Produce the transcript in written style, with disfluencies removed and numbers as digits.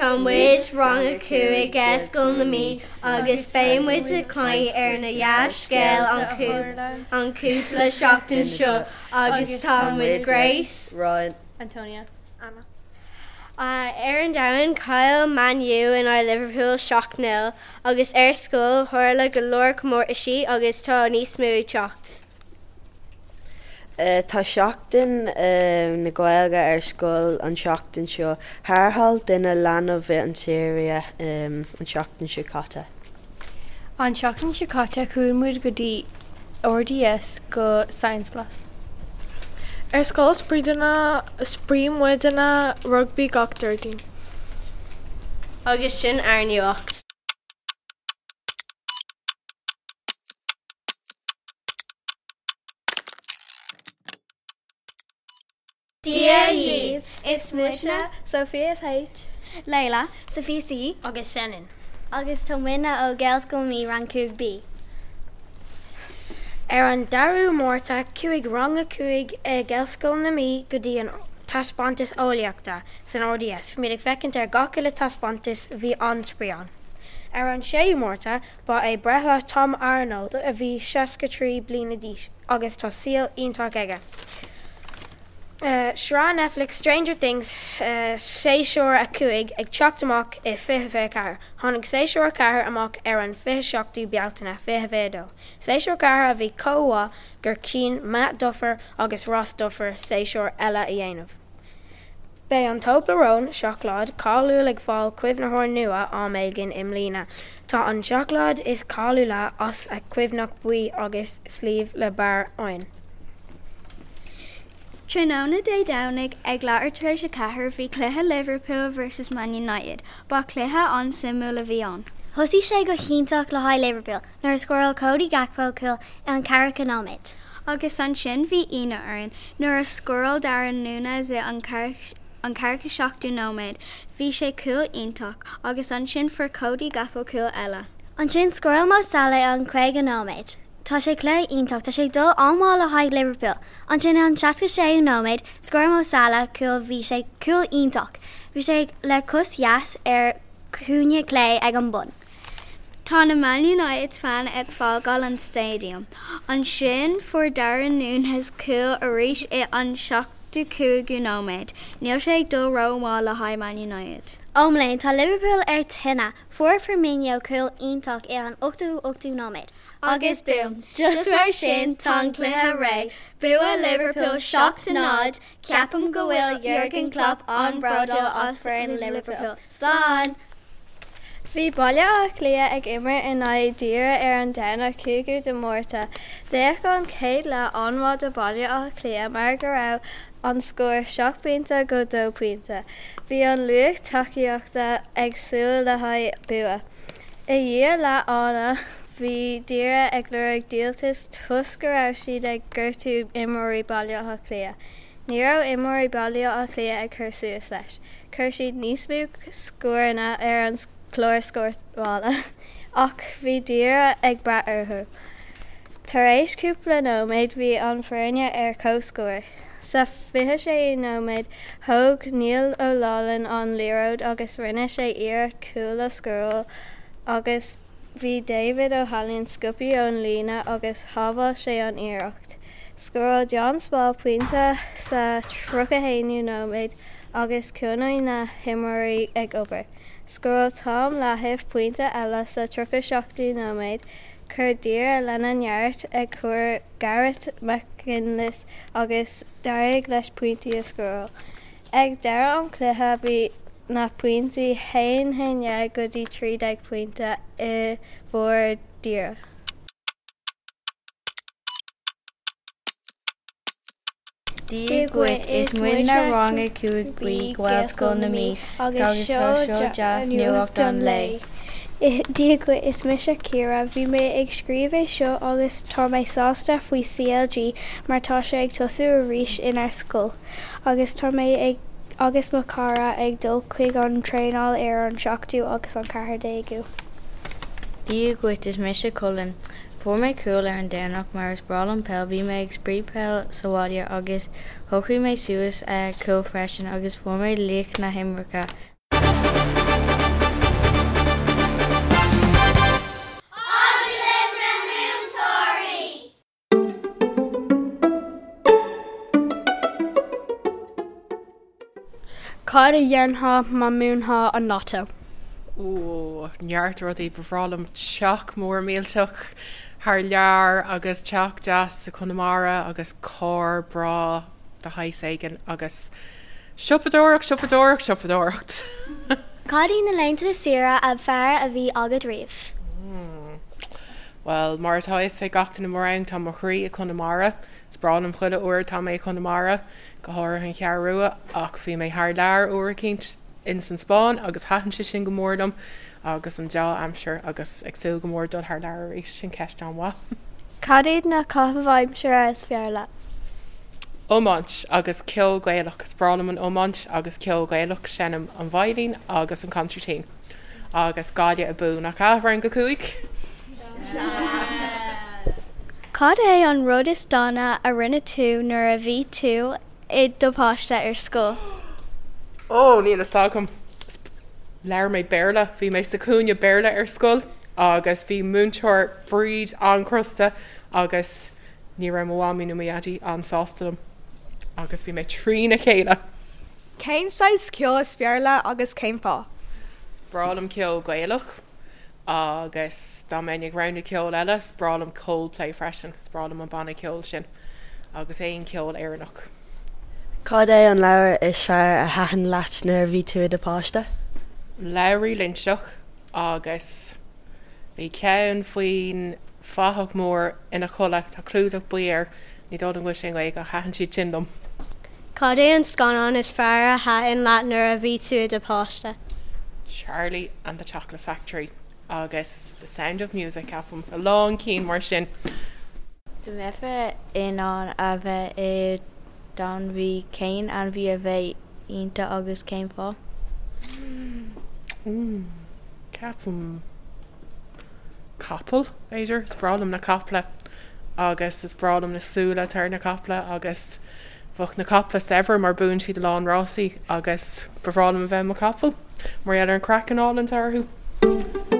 Tá muid rang a 5 Gaelscoil na Mí agus beidh muid ag caint ar na dea-scéal an cúpla seachtain seo agus tá muid Grace, Ryan, Antonia, Anna. Ar an domhan, chaill Man U in aghaidh Liverpool 7-0 agus ar scoil tharla go leor comórtaisí agus tá níos mó ag teacht. Tá Seachtain na Gaeilge ar scoil an seachtain seo. Tharrtháil duine leanbh i an tSiria an seachtain seo caite. An seachtain seo caite chuaigh muid go dtí RDS go Science Blast. Ar scoil spraoi muidne rugbaí gach Déardaoin. Agus sin ár nuacht. Dia dhaoibh, is muidne Sophia H. Leila, Sophia C. Agus Senan. Agus tá muidne ó Gaelscoil na Mí Rang 5 B. Ar an 2ú Márta chuaigh Rang a 5 i Gaelscoil na Mí go dtí an taispeántas eolaíochta san RDS. Bhí muid ag féachaint ar gach uile taispeántas, bhí an-spraoi ann. Ar an 6ú Márta Ba é breithlá Tom Arnold a bhí 63 bliana d'aois agus tá saol iontach aige. Sraith Netflix Stranger Things séasúr 5 ag teacht amach i 2024. Tháinig séasúr 4 amach ar an 27ú Bealtaine 2022. Séasúr 4 a bhí chomh mhaith gur chinn Matt Duffer agus Ross Duffer séasúr eile a dhéanamh. Beidh an Toblerone, seacláid cáiliúil ag fáil caomhnaitheoir nua am éigin i mbliana. Tá an seacláid is cáiliúla as a cuimhneach buí agus sliabh le barr oinn. Tráthnóna Dé Domhnaigh ag leathuair tar éis 4 bhí cluiche Liverpool vs Man United. Ba chluiche an-suimiúil a bhí ann. Thosaigh sé go hiontach le haghaidh Liverpool nuair a scóráil Cody Gakpo cúl i an ceathracha nóiméad. Agus ansin bhí ionadh orainn nuair a scóráil Darwin Núñez i an an 47ú nóiméad. Bhí sé cúl iontach agus ansin fuair Cody Gakpo cúl eile. Ansin scóráil Mo Salah i an 50 nóiméad. Tá sé cluiche iontach, tá sé ag dul an-mhaith le haghaidh Liverpool. Ansin i an 66ú nóiméad, scóráil Mo Salah cúl bhí sé cúl iontach. Bhí sé le cos dheas ar cúinne clé ag an bun. Tá na Man United fan ag fágáil an stadium. Ansin fuair Darwin Núñez cúl arís i an 75ú nóiméad. Níl sé ag dul ró-mhaith le haghaidh Man United. Ó mo léan, tá Liverpool ar tine! Fuair Firmino cúl iontach i an 88ú nóiméad. Agus boom! Just mar sin tá an cluiche réidh. Bua Liverpool 7-0. Ceapaim go bhfuil Jurgen Klopp an-bhródúil as foireann Liverpool. Slán! Bhí Baile Átha Cliath ag imirt in aghaidh Doire ar an Domhnach 5ú de Mhárta. D'fhéach an chéad leath an-mhaith do Baile Átha Cliath mar go raibh an scór 7 bpointe go 2 pointe. Bhí an lucht tacaíochta ag súil le haghaidh bua. I ndiaidh leath ama bhí Doire ag lorg díoltas toisc go raibh siad ag gortú imreoirí Baile Átha Cliath. Ní raibh imreoirí Baile Átha Cliath ag cur suas leis. Chuir siad níos mó scóranna ar an chlár scórála ach bhí Doire ag brath orthu. Tar éis cúpla nóiméad bhí an foirne ar comhscór. Sa 26ú nóiméad thóg Niall Ó Loughlin an liathróid agus rinne sé iarracht cúl a scóráil agus bhí David O'Halloran sciobtha ón líne agus shábháil sé an iarracht. Scóráil John Small pointe sa 31ú nóiméad agus choinnigh na himreoirí ag obair. Scóráil Tom Lahiff pointe eile sa 37ú nóiméad. Chuir Doire lena neart ag cur Garrett McGinley agus d'éirigh leis pointí a scóráil. Ag deireadh an chluiche bhí na pointí 1 11 go dtí 13 pointe i bhfabhar Doire. Dia dhuit, is muidne Rang 5 B Gaelscoil na Mí agus seo dea-nuacht an lae. Dia dhuit, is mise Ciara. Bhí mé ag scríobh é seo agus tá mé sásta faoi CLG mar tá sé ag tosú arís inár scoil agus tá mé ag agus mo chara ag dul chuig an traenáil ar an 7ú agus an 14ú. Dia dhuit, is mise Colin. Fuair mé cúl ar an Domhnach mar is breá liom peil, bhí mé ag spraoi peil sa bhaile agus shocraigh mé suas cúl freisin agus fuair mé laoch na himeartha. Cad a dhéanfá má mbuafá an Lotto? Ó, neart rudaí. Ba bhreá liom teach mór millteach thar lear agus teach deas i Conamara agus carr breá de shaghas éigin agus siopadóireacht, siopadóireacht, siopadóireacht! Cad iad na laethanta saoire ab fearr a bhí agat riamh? Bhuel, mar atá a fhios ag gach duine i mo rang, tá mo chroí i Conamara. Is breá liom chuile uair atá mé i Conamara, go háirithe an Cheathrú Rua, ach bhí mé thar lear uair eicínt ins an Spáinn agus thaitin sé sin go mór liom agus an deá-aimsir agus ag súil go mór dul thar lear arís, sin ceist an-mhaith. Cad iad na caitheamh aimsire is fearr leat? Iomáint agus ceol Gaelach. Is breá liom an iomáint agus ceol Gaelach. Seinnim an veidhlín agus an consairtín. Agus Gaillimh abú, nach ea, Rang 5? Cad é an rud is dána a rinne tú nuair a bhí tú i do pháiste ar scoil? Ó, níl fhios agam. Labhair mé Béarla. Bhí mé sa chúinne Béarla ar scoil agus bhí múinteoir Bríd an-chrosta agus ní raibh mo mhamaí nó mo dhaidí an-sásta liom agus bhí mé trína chéile. Cén saghas ceoil is fearr leat agus cén fáth? Is breá liom ceol Gaelach. Agus dá mbeinn ag roghnú ceol eile, is breá liom Coldplay freisin, is breá liom an banna ceoil sin agus aon cheol Éireannach. Cad é an leabhar is fearr a thaitin leat nuair a bhí tú i do pháiste? Labhraí Loinseach agus bhí ceann faoin fathach mór ina chodladh, tá clúdach buí air, ní dóigh liom go bhfuil sé i nGaeilge ach thaitin siad sin liom. Cad é an scannán is fearr a thaitin leat nuair a bhí tú i do pháiste? Charlie and the Chocolate Factory agus The Sound of Music, ceapaim. A lán cinn mar sin. Dá mbeifeá in ann a bheith i d'ainmhí, cén ainmhí a bheadh ionat agus cén fáth? Ceapaim. capall, b'fhéidir. Is breá liom na caiple agus is breá liom na súile atá ar na caiple agus bheadh na caiple saibhir mar buann siad a lán rásaí agus ba bhreá liom a bheith i mo chapall mar gheall ar an craiceann álainn atá orthu.